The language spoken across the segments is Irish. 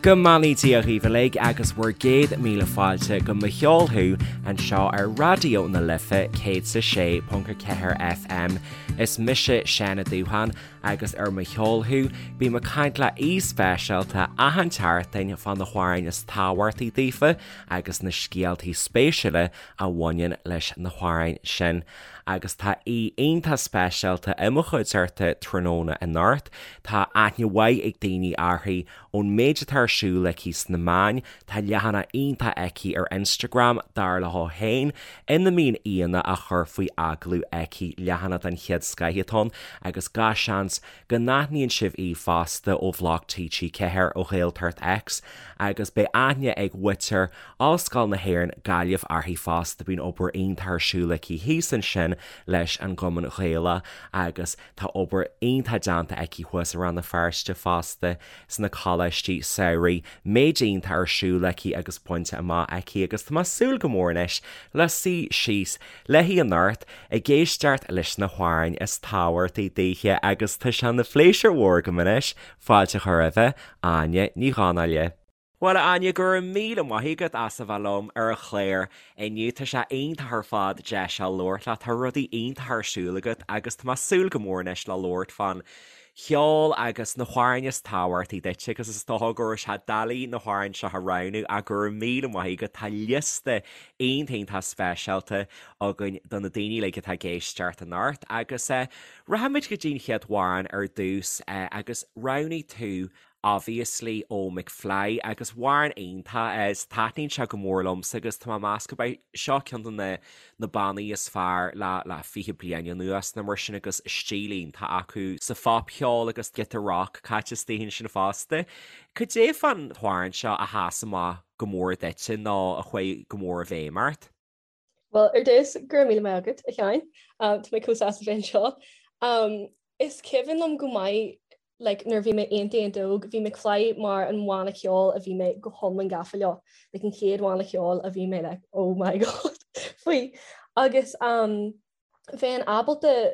Go mbeannaí Dia dhaoibh uilig agus bhur gcéad míle fáilte go Mo Cheol Thú anseo ar Raidió na Life 106.4 FM. Is mise Seán Ó Dúcháin agus ar Mo Cheol Thú bím ag caint le aoi speisialta achan tseachtain fá na hamhráin is tábhachtaí daofa agus na scéaltaí spéisiúla a bhaineann leis na hamhráin sin. Agus tá aoi iontach speisialta i mo chuideachta tráthnóna anocht. Tá aithne mhaith ag daoine uirthi ón méid atá ar siúl aici sna meáin, tá leathanach iontach aici ar Instagram, dar léi féin, ina mbíonn aíonna á chur faoi agallamh aici, leathanach den chéad scoith atá ann, agus gach seans go n-aithníonn sibh í fosta ó bhloc TG4, ó Ghaeltacht X, agus beidh aithne ag muintir Ollscoil na hÉireann, Gaillimh uirthi fosta, bíonn obair iontach ar siúl aici thíos ansin leis an gCumann Gaelach agus. Tá obair iontach déanta aici thuas i Rann na Feirste fosta, sna coláistí samhraidh, méid iontach ar siúl aici agus bainte amach aici agus tá mé ag súil go mór anois le suí síos léi anocht ag éisteacht leis na hamhráin is tábhachtaí daoithe agus tá sé ina phléisiúr mhór agam anois fáilte a chur roimhe, Áine Ní Dhonnaile. Bhuel, a Áine, go raibh míle maith agat as a bheith liom ar an chlár inniu. Tá sé iontach ar fad deis a labhairt leat. Tá rudaí iontacha ar siúl agat agus tá mé ag súil go mór anois le labhairt fán cheol agus na hamhráin is tábhachtaí duit agus is dócha go raibh sé doiligh na hamhráin seo a roghnú ach go raibh míle maith agat. Tá liosta iontach iontach speisialta againn do na daoine uilig atá ag éisteacht anocht agus rachaimid go dtí an chéad amhrán ar dtús agus roghnaigh tú Obviously ó McFly agus amhrán iontach é is taitníonn sé go mór liomsa agus tá mé ag meas gurb é seo ceann de na na bannaí is fearr le le 20 bliain anuas nó mar sin agus stíl iontach acu sa phopcheol agus giota rock caite istigh ansin fosta. Cad é fán amhrán seo a sheas amach go mór duitse nó a chuaigh go mór i bhfeidhm ort? Bhuel, ar dtús, go raibh míle maith agat, a Sheáin. Tá mé chomh sásta bheith anseo. Is cuimhin liom go maith like, nuair a bhí mé iontach iontach óg, bhí McFly mar an bhanna ceoil a bhí mé go hiomlán gafa leo. Like, an chéad bhanna ceoil a bhí mé like, oh my god, faoi. Agus um, bheinn ábalta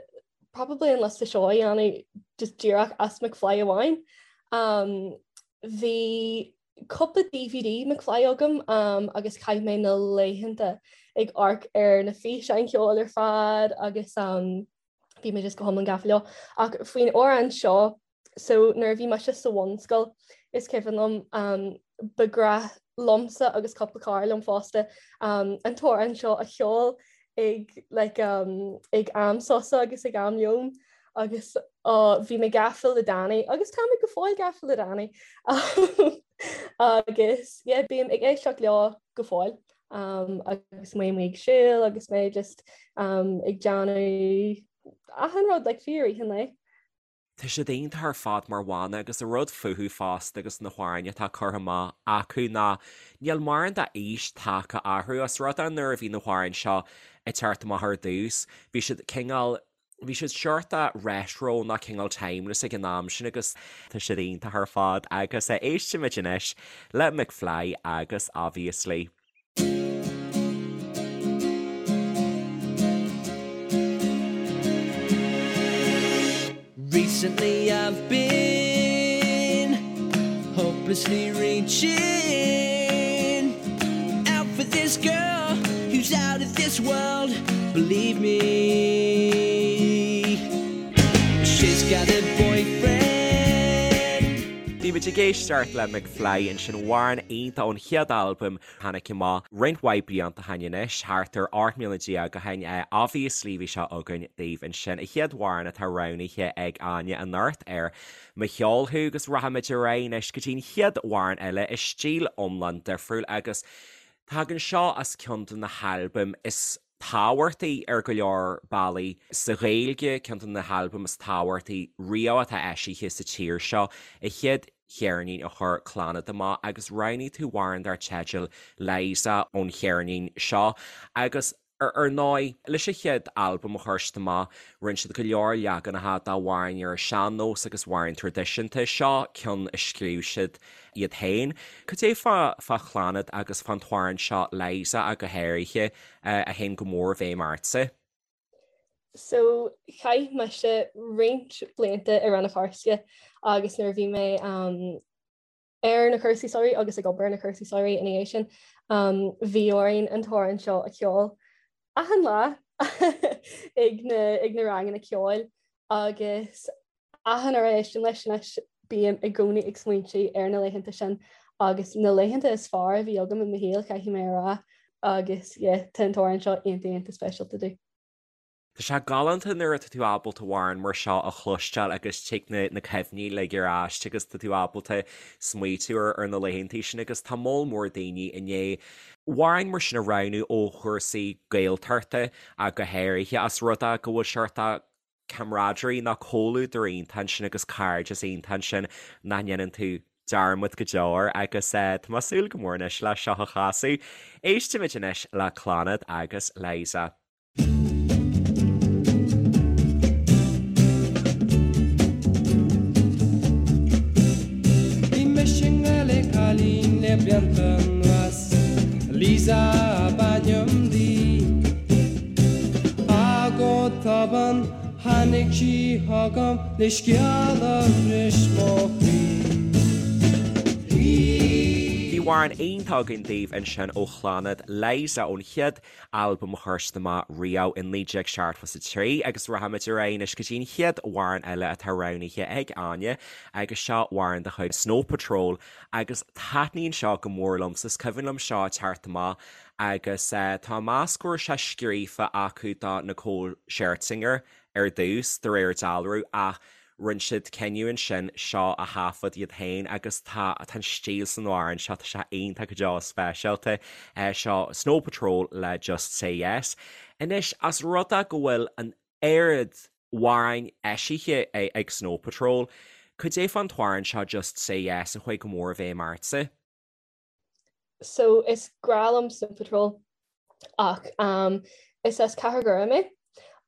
probably an liosta seo a dhéanamh just díreach as McFly amháin. Um, bhí cúpla DVD McFly agam agus chaith mé na laethanta ag amharc ar na físeáin cheoil ar fad agus bhí mé just go hiomlán gafa leo. Ach faoin amhrán seo, so nuair a bhí mise sa bhunscoil is cuimhin liom ba ghnách liomsa agus cúpla cara liom fosta an t-amhrán seo a cheol ag like ag am sosa agus ag am lóin agus bhí mé gafa le Danny agus tá mé go fóill gafa le Danny agus yeah bím ag éisteacht leo go fóill um, agus mé amuigh ag siúl agus mé just um, ag déanamh achan rud like fiú i rith an lae. Tá siad iontach ar fad mar bhanna agus an rud fúthu fosta agus na hamhráin atá curtha amach acu ná níl mórán d'aois tagtha orthu. Os rud é nuair a bhí na hamhráin seo ag teacht amach ar dtús bhí siad cineál bhí siad seort retro nó cineál timeless ag an am sin agus tá siad iontach ar fad agus éistfimid anois le McFly agus Obviously. Recently I've been hopelessly reaching out for this girl who's out of this world, believe me. She's got a boyfriend. Bhí muid ag éisteacht le McFly ansin, amhrán iontach ón chéad albam Tháinig amach roinnt mhaith blianta ó shin anois, thart ar 18 mbliana ó shin. Obviously bhí seo againn daoibh ansin. An chéad amhrán atá roghnaithe ag Áine anocht ar Mo Cheol Thú agus rachaimid ar aghaidh anois go dtí an chéad amhrán eile i stíl iomlán difriúil agus tagann seo as ceann de na halbaim is tábhachtaí ar go leor bealaí sa Ghaeilge, ceann de na halbaim is tábhachtaí riamh atá eisithe sa tír seo, an chéad cheirnín a chuir Clannad amach agus roghnaigh tú amhrán dar teideal Liza ón cheirnín seo agus ar ndóigh, leis an chéad albam a chuir siad amach, rinne siad go leor leaganacha d'amhráin ar an sean-nós agus amhráin traidisiúnta. Seo ceann a scríobh siad iad féin. Cad é fá fá Chlannad agus fán t-amhrán seo Liza ach go háirithe a théann go mór i bhfeidhm ortsa? So chaith mise roinnt blianta i Rann na Feirste agus nuair a bhí mé um, Ar na cúrsaí samhraidh agus ag obair ar na cúrsaí samhraidh ina dhiaidh sin, bhí orainn an t-amhrán seo a cheol achan lá ag na ag na ranganna ceoil agus achan uair a éistim leis anois bím i gcónaí ag smaointiú ar na laethanta sin agus na laethanta is fearr a bhí agam i mo shaol, caithfidh mé a rá, agus yeah, tá an t-amhrán seo iontach iontach speisialta domh. Tá sé galánta nuair atá tú ábalta amhrán mar seo a chloisteáil agus tig na na cuimhní uilig ar ais agus tá tú ábalta smaoitiú ar ar na laethantaí sin agus tá moll mór daoine i ndiaidh amhráin mar sin a roghnú ó chúrsaí Gaeltachta ach go háirithe as rud é go bhfuil seort camaraderie nó comhluadar iontach ansin agus cairdeas iontach ansin nach ndéanann tú dearmad go deo air agus tá mé ag súil go mór anois le seo a chasadh. Éistimid anois le Clannad agus Liza. Bhí mise i ngrá le cailín le blianta anuas, Liza ab ainm di. Ach go tobann tháinig sí chugam le scéal a bhris mo chroí. Bhí amhrán iontach againn daoibh ansin ó Chlannad, Liza ón chéad albam a chuir siad amach riamh i 1973 agus rachaimid ar aghaidh anois go dtí an chéad amhrán eile atá roghnaithe ag Áine agus seo amhrán de chuid Snow Patrol agus taitníonn seo go mór liomsa, is cuimhin liom seo ag teacht amach agus tá mé ag meas go raibh sé scríofa acu do Nicole Scherzinger ar dtús de réir dealraimh ach Rinne siad cinneadh ansin seo a thaifead iad féin agus tá tá an stíl san amhrán seo, tá sé iontach go deo speisialta. Seo Snow Patrol le Just Say Yes. Anois, as rud é go bhfuil an oiread amhráin eisithe ag Snow Patrol, cad é fán t-amhrán seo Just Say Yes a chuaigh go mór i bhfeidhm ortsa? So is grá liom Snow Patrol ach um, is as Cathair Dhoire mé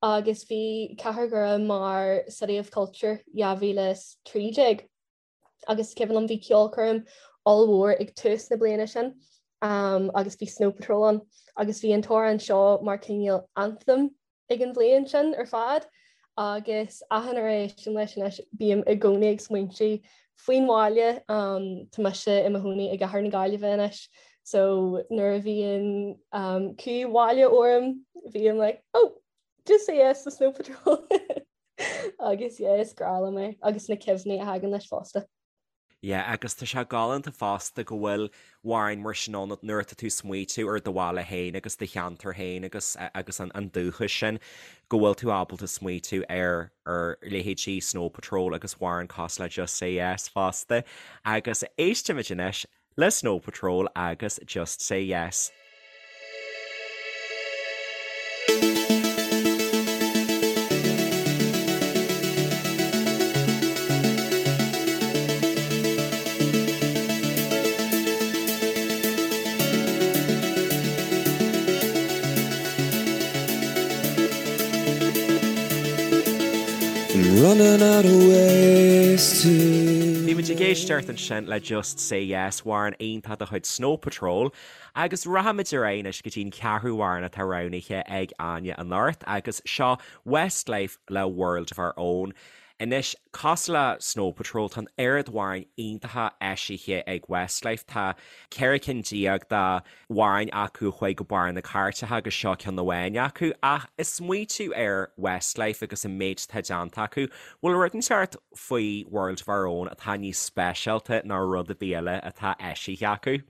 agus bhí Cathair Dhoire mar City of Culture 2013 agus cuimhin liom bhí ceolchoirm ollmhór ag tús na bliana sin um, agus bhí Snow Patrol ann agus bhí an t-amhrán seo mar cineál anthem ag an bhliain sin ar fad agus achan uair a éistim leis anois bím i gcónaí ag smaointiú faoin bhaile. Tá mise i mo chónaí i gcathair na Gaillimhe anois so nuair a bhíonn cumha bhaile orm bím like oh just say yes to Snow Patrol agus yeah is grá liom é agus na cuimhní a thagann leis fosta. Yeah, agus tá sé galánta fosta go bhfuil amhráin mar sin ann nuair atá tú ag smaoitiú ar do bhaile féin agus do cheantar féin agus agus an an dúchas sin, go bhfuil tú ábalta smaoitiú ar ar leithéidí Snow Patrol agus amhráin cosúil le Just Say Yes fosta. Agus éistimid anois le Snow Patrol agus Just Say Yes. Running out of ways to. Bhí muid ag éisteacht ansin le Just Say Yes, amhrán iontach de chuid Snow Patrol. Agus rachaimid ar aghaidh anois go dtí an ceathrú amhrán atá roghnaithe ag Áine anocht agus seo Westlife le World of Our Own. Anois, cosúil le Snow Patrol, tá an oiread amhráin iontacha eisithe ag Westlife, tá 14 cinn d'amhráin acu a chuaigh go barr na cairteacha agus seo ceann amháin acu. Ach ag smaoitiú ar Westlife agus an méid atá déanta acu, bhfuil rud inteacht faoi World of Our Own atá níos speisialta ná rud ar bith eile atá eisithe acu?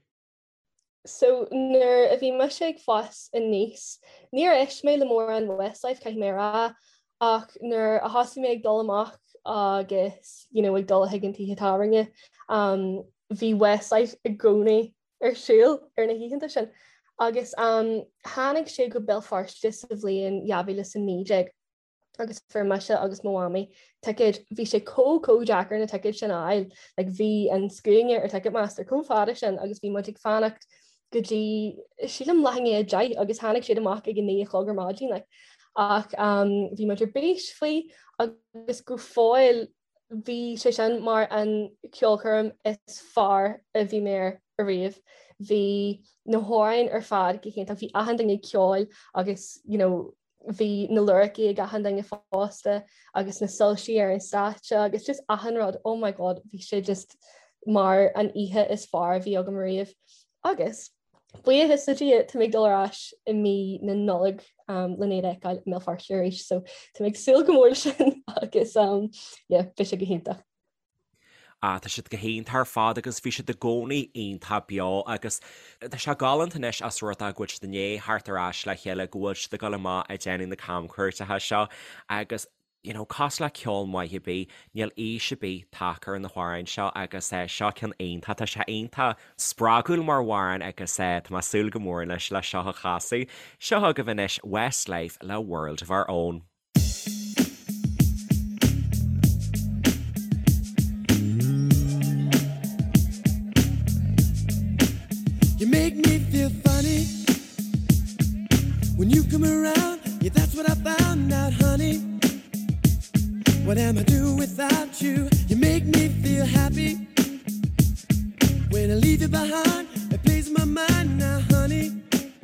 So nuair a bhí mise ag fás aníos, níor éist mé le mórán Westlife, caithfidh mé a rá, ach nuair a thosaigh mé ag dul amach agus you know, ag dul chuig an tithe tábhairne, um, bhí Westlife i gcónaí ar siúl ar na hoícheanta sin. Agus um, tháinig sé go Béal Feirste sa bhliain 2019. agus fuair mise agus mo mhamaí ticéid, bhí sé chomh chomh deacair na ticéid sin a fháil, like bhí an scuaine ar Ticketmaster chomh fada sin agus bhí muid ag fanacht go dtí sílim leath i ndiaidh 10 agus tháinig siad amach ag a 9 a chlog ar maidin like. Ach um, bhí muid ar bís faoi agus go fóill bhí sé sin mar an ceolchoirm is fearr a bhí mé air ariamh. Bhí na hamhráin ar fad go hiontach, bhí achan duine ag ceol agus you know, bhí na lyricí ag achan duine fosta agus na soilsí ar an stáitse agus just achan rud, oh my god, bhí sé just. mar an oíche is fearr a bhí agam ariamh agus buíochas le Dia tá mé ag dul ar ais i mí na Nollag len iad a fheiceáil i mBéal Feirste arís so tá mé ag súil go mór leis sin agus yeah beidh sé go hiontach. Ah, tá siad go hiontach ar fad agus bhí siad i gcónaí iontach beo agus tá sé galánta anois as rud é go bhfuil siad i ndiaidh theacht ar ais le chéile, go bhfuil siad ag dul amach ag déanamh na camchuairteacha seo agus you know, cosúil le ceol maith ar bith, níl aois ar bith tagtha ar na hamhráin seo agus eh, seo ceann iontach, tá sé iontach spreagúil mar amhrán agus eh, tá mé ag súil go mór anois le seo a chasadh. Seo chugaibh anois Westlife le World of Our Own. You make me feel funny when you come around. Yeah, that's what I found out, honey. What am I do without you? You make me feel happy when I leave you behind. It plays my mind now, honey.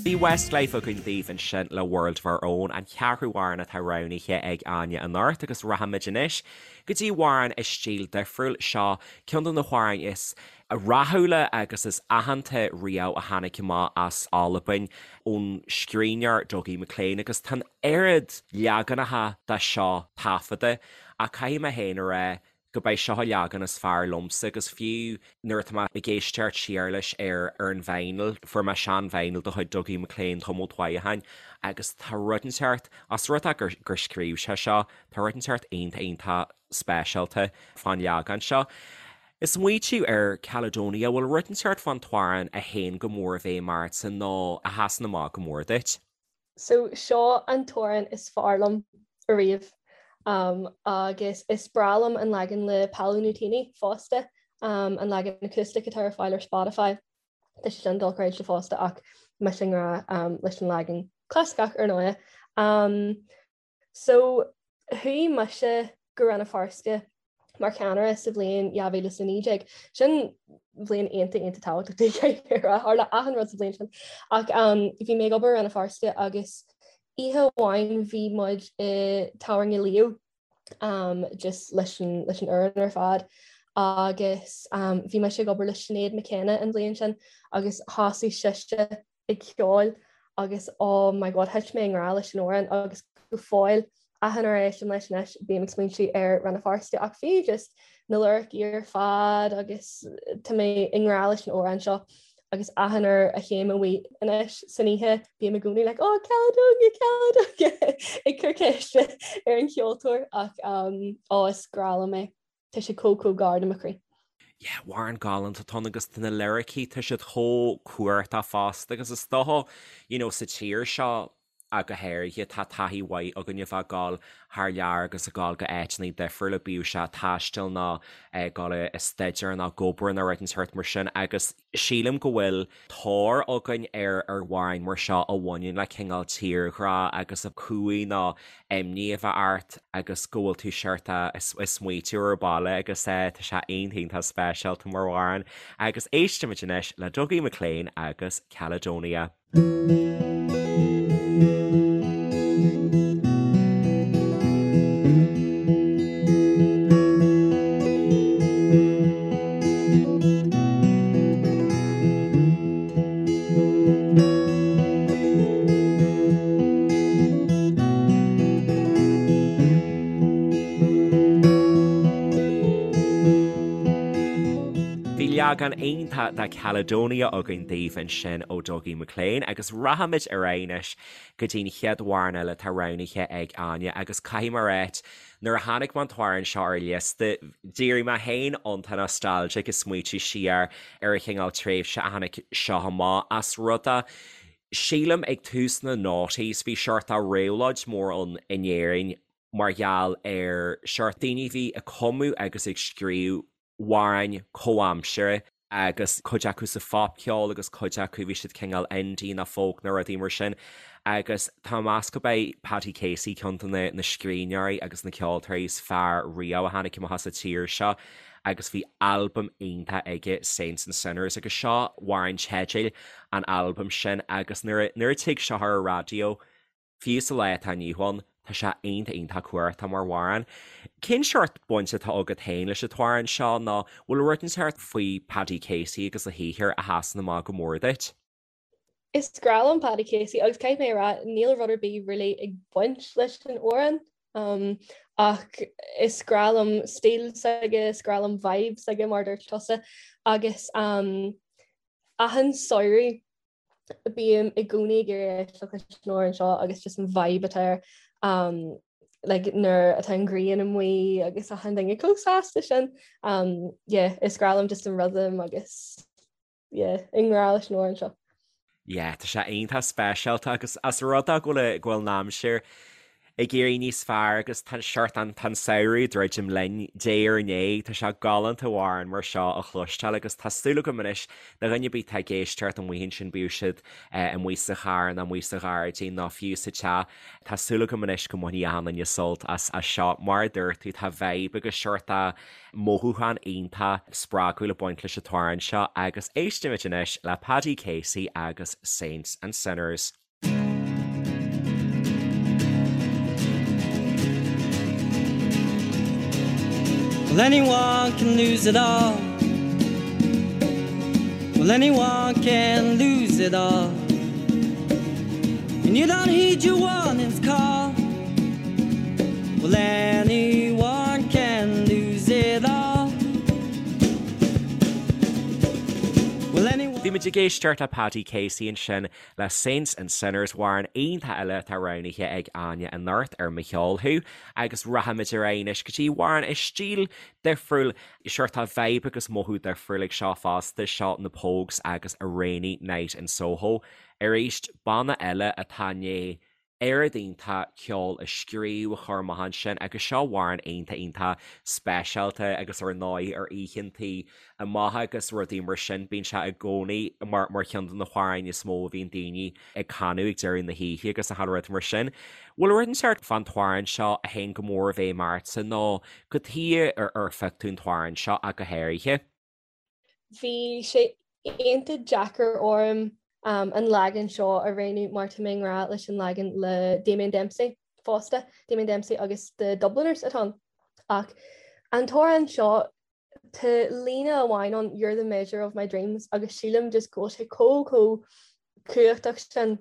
Bhí Westlife againn daoibh ansin le World of Our Own, an ceathrú amhrán atá roghnaithe ag Áine anocht agus rachaimid anois go dtí amhrán i stíl difriúil. Seo ceann de na hamhráin is rathúla agus is aitheanta riamh a tháinig amach as Albain ón scríbhneoir Dougie MacLean agus tá an oiread leaganacha de seo taifeadta ach caithfidh mé féin a rá go b'é seo an leagan is fearr liomsa agus fiú nuair atá mé ag éisteacht siar leis ar ar an vinyl, fuair mé sean vinyl de chuid Dougie MacLean tamall mhaith ó shin agus tá rud inteacht, as rud é gur gur scríobh sé seo, tá rud inteacht iontach iontach speisialta fán leagan seo. Ag smaoitiú ar Caledonia, bhfuil rud inteacht fán t-amhrán a théann go mór i bhfeidhm ortsa nó a sheasann amach go mór duit? So seo an t-amhrán is fearr liom ariamh agus is breá liom an leagan le Paolo Nutini fosta, an leagan acoustic atá ar fáil ar Spotify. Tá sé sin dochreidte fosta ach mise i ngrá leis an leagan clasaiceach ar ndóigh. So chuaigh mise go Rann na Feirste mar cheannaire sa bhliain 2019. Sin bhliain iontach iontach tábhachtach di tharla achan rud sa bhliain sin. Ach um, bhí mé ag obair i Rann na Feirste agus oíche amháin bhí muid i tábhairne Leo um, just leis an, leis an fhoireann ar fad agus um, bhí mise ag obair le Sinéad McKenna an bhliain sin agus thosaigh sise ag ceol agus oh my god thit mé i ngrá leis an amhrán agus go fóill achan uair a éistim leis anois bím ag smaointiú ar Rann na Feirste ach fiú just na liricí ar fad agus tá mé i ngrá leis an amhrán seo agus achan uair a théim amuigh anois san oíche bím i gcónaí like oh Caledonia Caledonia ag cur ceiste ar an cheoltóir ach um, oh is grá liom é. Tá sé chomh chomh gar do mo chroí. Yeah, amhrán galánta atá ann agus tá na liricí, tá siad chomh cumhachtach fosta agus is dócha, you know, sa tír seo ach go háirithe, tá taithí mhaith againn a bheith ag dul thar lear agus ag dul go áiteanna difriúla, bíodh sé taisteal nó ag dul ag staidéar nó ag obair nó rud inteacht mar sin agus Sílim go bhfuil tóir againn ar amhráin mar seo a bhaineann le cineál tírghrá agus cumha nó imní a bheith ort agus go bhfuil tú seort ag smaoitiú ar baile agus tá sé iontach iontach speisialta mar amhrán agus éistimid anois le Dougie MacLean agus Caledonia. Bhí leagan iontach de Caledonia againn daoibh ansin ó Dougie MacLean agus rachaimid ar aghaidh anois go dtí'n chéad amhrán eile atá roghnaithe ag Áine agus caithfidh mé a ráit nuair a chonaic mé an t-amhrán seo ar an liosta d'éirigh mé féin iontach nostalgic ag smaoitiú siar ar an chineál tréimhse a tháinig seo amach as rud a sílim ag tús na noughties bhí seort de réabhlóid mór ann in Éirinn mar gheall ar seort daoine a bhí ag cumadh agus ag scríobh amhráin comhaimseartha agus cuid acu sa phopcheol agus cuid acu bhí siad cineál indie nó folk nó rudaí mar sin agus tá mé ag meas gurb é Paddy Casey ceann de na scríbhneoirí agus na ceoltóirí is fearr riamh a tháinig amach as an tír seo agus bhí albam iontach aige Saints and Sinners agus seo amhrán teidil an albaim sin agus nuair a nuair a tig seo ar an raidió Fiú sa lá atá inniu ann, Tá sé iontach iontach cumhachtach mar amhrán. Cén seort baint atá agat féin leis an t-amhrán seo nó bhfuil rud inteacht faoi Paddy Casey agus a shaothar a sheasann amach go mór duit? Is grá liom Paddy Casey agus caithfidh mé a rá níl rud ar bith really ag baint leis an amhrán um, ach is grá liom stíl s'aige, is grá liom vibe s'aige mar dúirt tusa agus um, achan samhradh bím i gcónaí ag iarraidh éisteacht leis an amhrán seo agus just an vibe atá air um, like, nuair atá an ghrian amuigh agus achan duine chomh sásta sin. Um, yeah, is grá liom just an rhythm agus yeah, i ngrá leis an amhrán seo. Yeah, tá sé iontach speisialta agus as rud é go bhfuil go bhfuil an aimsir ag éirí níos fearr agus tá seort an tá an samhradh ag druidim linn diaidh ar ndiaidh, tá sé galánta amhrán mar seo a chloisteáil agus tá súil agam anois do dhuine ar bith atá ag éisteacht amuigh ansin bíodh siad amuigh sa charr nó amuigh sa ghairdín nó fiú sa teach, tá súil agam anois go mbainfidh achan duine sult as as seo. Mar a dúirt tú tá vibe agus seort de mothúchán iontach spreagúil ag baint leis an t-amhrán seo agus éistimid anois le Paddy Casey agus Saints and Sinners. Well anyone can lose it all Well anyone can lose it all And you don't heed your warnings call Well anyone can lose it all Well anyone Bhí muid ag éisteacht le Paddy Casey ansin le Saints and Sinners, amhrán iontach eile atá roghnaithe ag Áine anocht ar Mo Cheol Thú agus rachaimid ar aghaidh anois go dtí amhrán i stíl difriúil, seort de vibe agus mothú difriúil ag seo fosta, seo na Pogues agus A Rainy Night in Soho. Arís, banna eile atá i ndiaidh oiread iontach ceoil a scríobh, a chur amach ansin agus seo amhrán iontach iontach speisialta agus ar ndóigh ar oícheantaí amach agus rudaí mar sin bíonn sé i gcónaí mar mar cheann de na hamhráin is mó a bhíonn daoine ag canadh ag deireadh na hoíche agus achan rud mar sin. Bhfuil rud inteacht fán t-amhrán seo a théann go mór i bhfeidhm ortsa nó cad chuige ar ar phioc tú an t-amhrán seo ach go háirithe? Bhí sé iontach deacair orm an leagan seo a roghnú mar tá mé i ngrá leis an leagan le Damien Dempsey fosta, Damien Dempsey agus The Dubliners atá ann. Ach an t-amhrán seo tá líne amháin ann 'You're the measure of my dreams' agus sílim just go bhfuil sé chomh chomh cumhachtach sin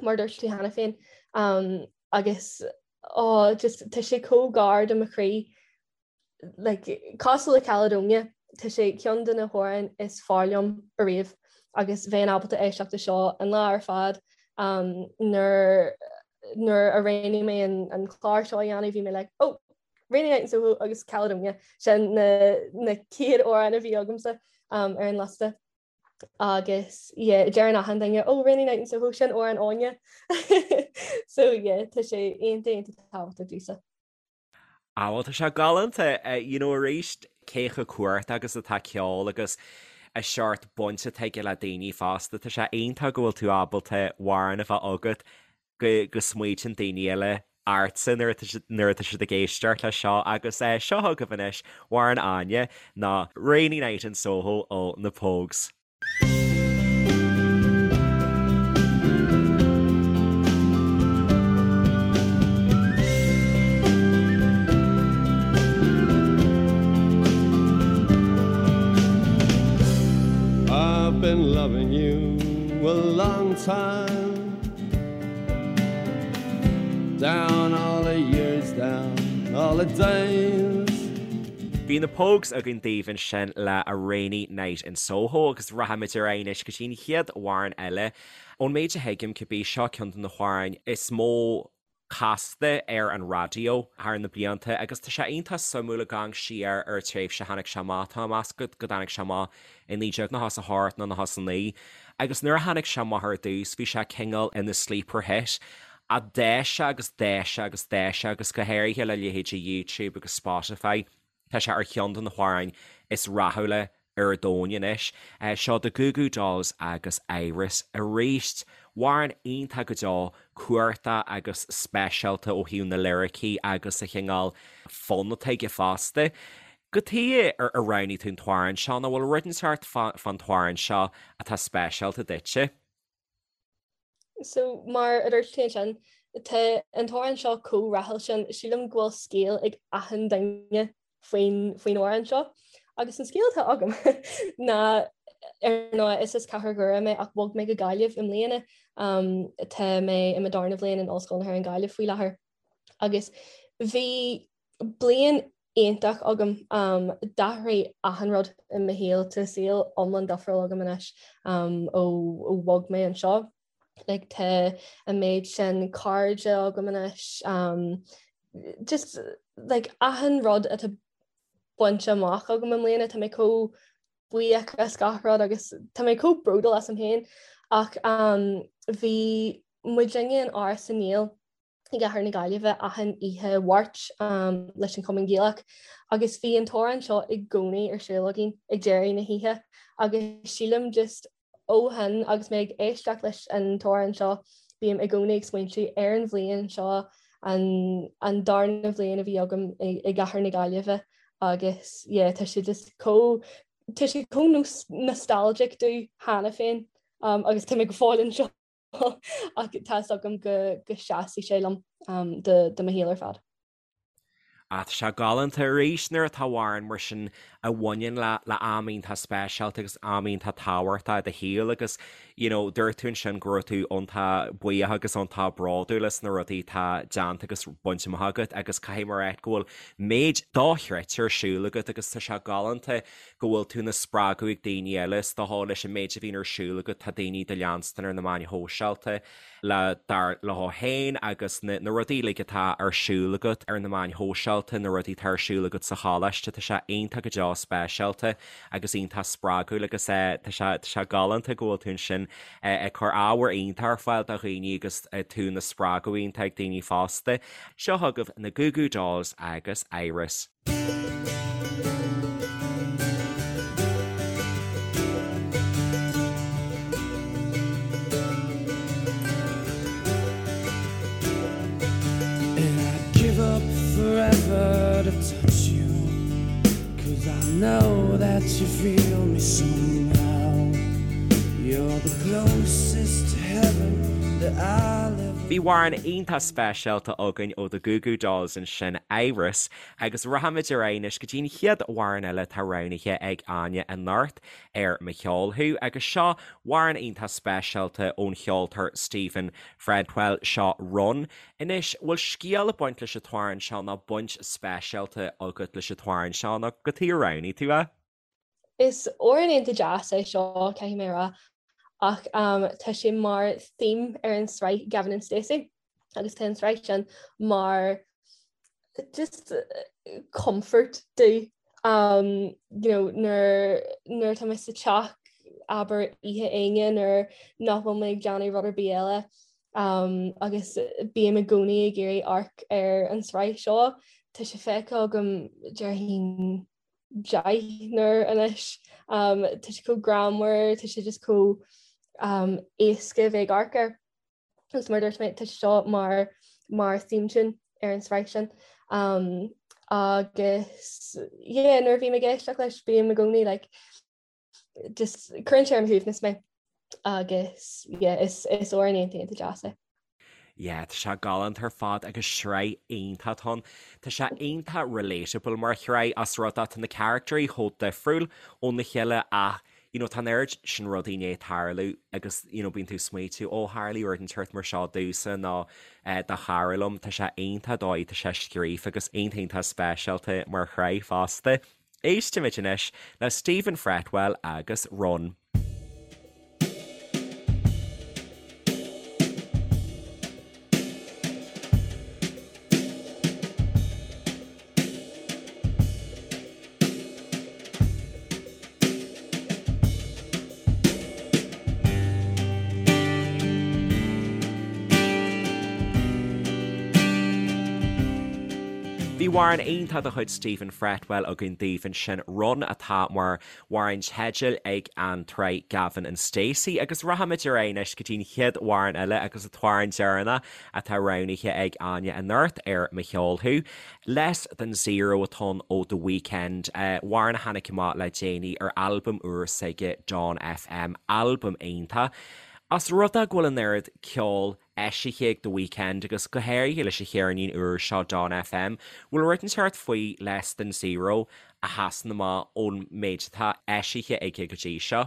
mar dúirt tú cheana féin agus oh just tá sé chomh gar do mo chroí like, cosúil le Caledonia, tá sé ceann de na hamhráin is fearr liom ariamh agus bheinn ábalta éisteacht leis seo an lá ar fad um, nuair nuair a roghnaigh mé an, an clár seo a dhéanamh bhí mé like, oh, Rainy Night in Soho agus Caledonia sin na, na chéad amhráin a bhí agamsa um, ar an liosta. Agus yeah, deireann achan duine oh Rainy Night in Soho sin amhrán Áine. so yeah, tá sé iontach iontach tábhachtach domhsa. Ah bhuel tá sé galánta, you know arís cé chomh cumhachtach agus atá ceol agus an seort baint atá aige le daoine fosta, tá sé iontach go bhfuil tú ábalta amhrán a bheith agat go go smaoitíonn daoine eile ortsa nuair atá nuair atá siad ag éisteacht leis seo agus eh seo chugaibh anois amhrán Áine ná Rainy Night in Soho ó na Pogues. I've been loving you a long time Down all the years, down all the days Bhí na Pogues againn daoibh ansin le A Rainy Night in Soho agus rachaimid ar aghaidh anois go dtí an chéad amhrán eile. Ón méid a thuigim, cibé, seo ceann de na hamhráin is mó casta ar an raidió thar na blianta agus tá sé iontach suimiúil ag amharc siar ar an tréimhse a tháinig sé amach. Tá mé ag meas go dtáinig sé amach i 1998 nó 99 agus nuair a tháinig sé amach ar dtús bhí sé cineál ina sleeper hit ach d'fhás sé agus d'fhás sé agus d'fhás sé agus go háirithe le leithéidí YouTube agus Spotify tá sé ar cheann de na hamhráin is rathúla ar domhan anois. Seo The Goo Goo Dolls agus Iris arís. Amhrán iontach go deo, cumhachtach agus speisialta ó thaobh na liricí agus an chineál fonn atá aige fosta. Cad chuige ar roghnaigh tú an t-amhrán seo nó bhfuil rud inteacht fán t-amhrán seo atá speisialta duitse? So mar a dúirt tú ansin, Tá an t-amhrán seo chomh rathúil sin, sílim go bhfuil scéal ag achan duine faoin faoin amhrán seo. Agus an scéal atá agam ná ar ndóigh is as Cathair Dhoire mé ach bhog mé go Gaillimh i mbliana. Tá mé i mo darna bhliain in Ollscoil na hÉireann Gaillimh faoi láthair. Agus bhí bliain iontach agam. D'athraigh achan rud i mo shaol. Tá saol iomlán difriúil agam anois ó bhog mé anseo. Like tá an méid sin cairde agam anois. Just like achan rud atá bainte amach agam i mbliana, tá mé chomh buíoch as gach rud agus tá mé chomh bródúil asam féin. Ach bhí muidinne in Áras na nGael i gcathair na Gaillimhe achan oíche Mháirt leis an Chumann Gaelach agus bhí an t-amhrán seo i gcónaí ar siúl againn ag deireadh na hoíche agus sílim just ó shin agus mé ag éisteacht leis an t-amhrán seo bím i gcónaí ag smaointiú ar an bhliain seo an an darna bhliain a bhí agam i gcathair na Gaillimhe agus yeah tá sé just chomh tá sé chomh nostalgic domh cheana féin agus tá mé go fóill anseo. Ach tá 'fhios agam go seasfaidh sé liom do mo shaol ar fad. Ah, tá sé galánta arís nuair atá amhrán mar sin a bhaineann le le am iontach speisialta agus am iontach tábhachtach i do shaol agus you know dúirt tú ansin go raibh tú iontach buíoch agus iontach bródúil as na rudaí atá déanta agus bainte amach agat agus caithfidh mé a rá go bhfuil méid dochreidte ar siúl agat agus tá sé galánta go bhfuil tú ina spreagadh ag daoine eile, is dócha, leis an méid a bhíonn ar siúl agat, tá daoine do leanstan ar na meáin shóisialta le dar leo féin agus na na rudaí uilig atá ar siúl agat ar na meáin shóisialta, na rudaí atá ar siúl agat sa choláiste, tá sé iontach go deo speisialta agus iontach spreagúil agus tá sé tá sé galánta go bhfuil tú ansin ag cur ábhar iontach ar fáil do dhaoine agus tú ina spreagadh iontach ag daoine fosta. Seo chugaibh na Goo Goo Dolls agus Iris. And I'd give up forever to touch you Cause I know that you feel me somehow You're the closest to heaven that I'll ever Bhí amhrán iontach speisialta againn ó The Goo Goo Dolls ansin, Iris, Agus rachaimid ar aghaidh anois go dtí an chéad amhrán eile atá roghnaithe ag Áine anocht ar Mo Cheol Thú agus seo amhrán iontach speisialta ón cheoltóir Stephen Fretwell, seo Run. Anois, bhfuil scéal ag baint leis an t-amhrán seo nó baint speisialta agat leis an t-amhrán seo nó cad chuige ar roghnaigh tú é? Is amhrán iontach deas é seo, caithfidh mé a rá, ach tá sé mar theme ar an sraith Gavin and Stacey agus tá an tsraith sin mar just comfort domh um, you know, nuair nuair tá mé sa teach abair oíche Aoine nuair nach bhfuil mé ag déanamh rud ar bith eile um, agus bím i gcónaí ag iarraidh amharc ar an tsraith seo, tá sé feicthe agam déarfainn 10 n-uair anois. Tá sé chomh greannmhar, tá sé just chomh éasca a bheith ag amharc air. Agus mar a dúirt mé, tá sé seo mar mar theme tune ar an tsraith sin. Agus yeah, nuair a bhím ag éisteacht leis, bím i gcónaí like just cuireann sé ar mo shuaimhneas mé agus yeah, is is amhrán iontach iontach deas é. Yeah, tá sé galánta ar fad agus sraith iontach atá ann. Tá sé iontach relatable mar shraith as rud é tá na caractéirí chomh difriúil óna chéile ach you know tá an oiread sin rudaí i ndiaidh tarlú agus you know bíonn tú ag smaoitiú ó tharlaigh rud inteacht mar seo domhsa nó eh, do chara liom. Tá sé iontach dóigh tá sé scríofa agus iontach iontach speisialta mar shraith fosta. Éistimid anois le Stephen Fretwell agus Run. Bhí amhrán iontach de chuid Stephen Fretwell againn daoibh ansin, Run atá mar amhrán teidil ag an tsraith Gavin and Stacey agus rachaimid ar aghaidh anois go dtí an chéad amhrán eile agus an t-amhrán deireanach atá roghnaithe ag Áine anocht ar Mo Cheol Thú. Less Than Zero atá ann ó The Weeknd, amhrán a tháinig amach le déanaí ar albam úr s'aige Dawn FM, albam iontach. As rud é go bhfuil an oiread ceoil. eisithe ag The Weeknd agus go háirithe leis an cheirnín úr seo Dawn FM. Bhfuil rud inteacht faoi Less Than Zero a sheasann amach ón méid atá eisithe aige go dtí seo?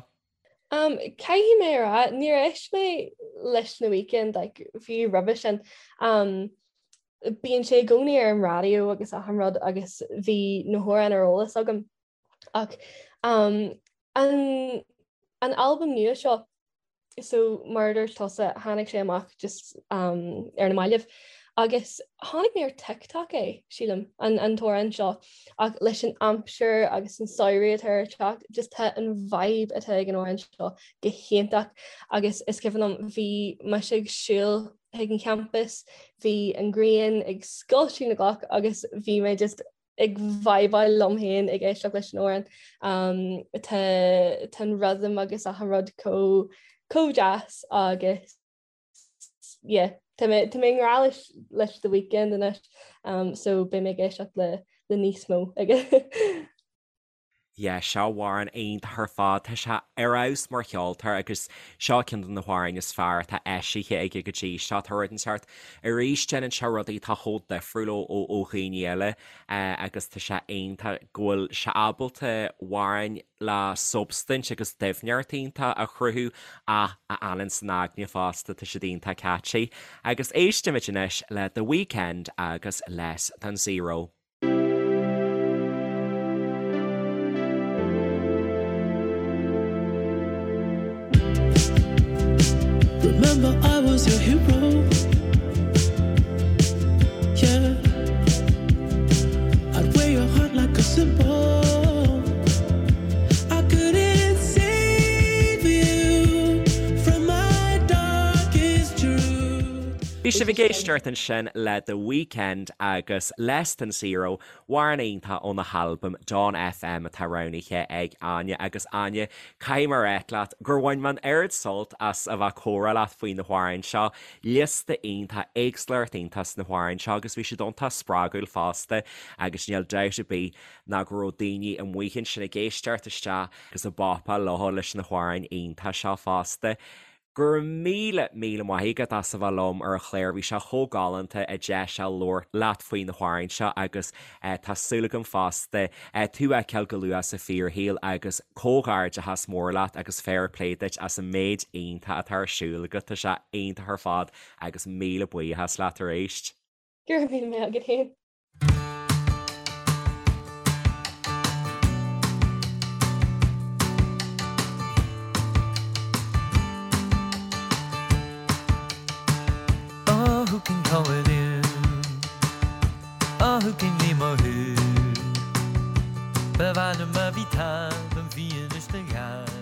Um, caithfidh mé a rá, níor éist mé leis The Weeknd like, fiú roimhe sin. Um, bíonn sé i gcónaí ar an raidió agus achan rud agus bhí na hamhráin ar eolas agam. Ach um, an, an albam nua seo, so mar a dúirt tusa, tháinig sé amach just um, ar na mallaibh. Agus chonaic mé ar TikTok é, sílim, an, an t-amhrán seo, ach leis an aimsir agus an samhradh atá ar teacht, just tá an vibe atá ag an amhrán seo go hiontach agus is cuimhin liom bhí mise ag siúl chuig an champas, bhí an ghrian ag scoilteadh na gcloch agus bhí mé just ag vibeáil liom féin ag éisteacht leis an amhrán. Um, tá, tá an rhythm agus achan rud chomh chomh deas agus yeah, tá mé tá mé i ngrá leis leis The Weeknd anois um, so beidh mé ag éisteacht le le níos mó aige. Yeah, seo amhrán iontach ar fad. Tá sé ar fheabhas mar cheoltóir agus seo ceann de na hamhráin is fearr atá eisithe aige go dtí seo. Tá rud inteacht arís déanann sé rudaí atá chomh difriúil ó ó ó dhaoine eile agus tá sé iontach go bhfuil sé ábalta amhráin le substaint agus doimhneacht iontach a chruthú ach a fhanann san aigne fosta, tá siad iontach catchy. Agus éistimid anois le The Weeknd agus Less Than Zero. Remember I was your hero Yeah I'd wear your heart like a symbol I couldn't save you from my darkest truth Bhí sibh ag éisteacht ansin le The Weeknd agus Less Than Zero, amhrán iontach óna halbam Dawn FM atá roghnaithe ag Áine. Agus Áine, caithfidh mé a ráit leat gur bhain mé an oiread sult as a bheith ag comhrá leat faoi na hamhráin seo. Liosta iontach, éagsúlacht iontach sna hamhráin seo agus bhí siad iontach spreagúil fosta agus níl dabht ar bith ná go raibh daoine amuigh ansin ag éisteacht isteach agus ag bopáil leo leis na hamhráin iontach seo fosta. Go raibh míle, míle maith agat as a bheith liom ar an chlár, bhí sé chomh galánta an deis a labhairt leat faoi na hamhráin seo agus tá súil agam fosta tú a fheiceáil go luath sa fíorshaol agus comhghairdeachas mór leat agus fair play duit as an méid iontach atá ar siúl agat, tá sé iontach ar fad agus míle buíochas leat arís. Go raibh míle maith agat féin. Oh, who can call it in? Oh, who can name a who? Ba mhaith liom a bhí taobh an bhí anois na gheal.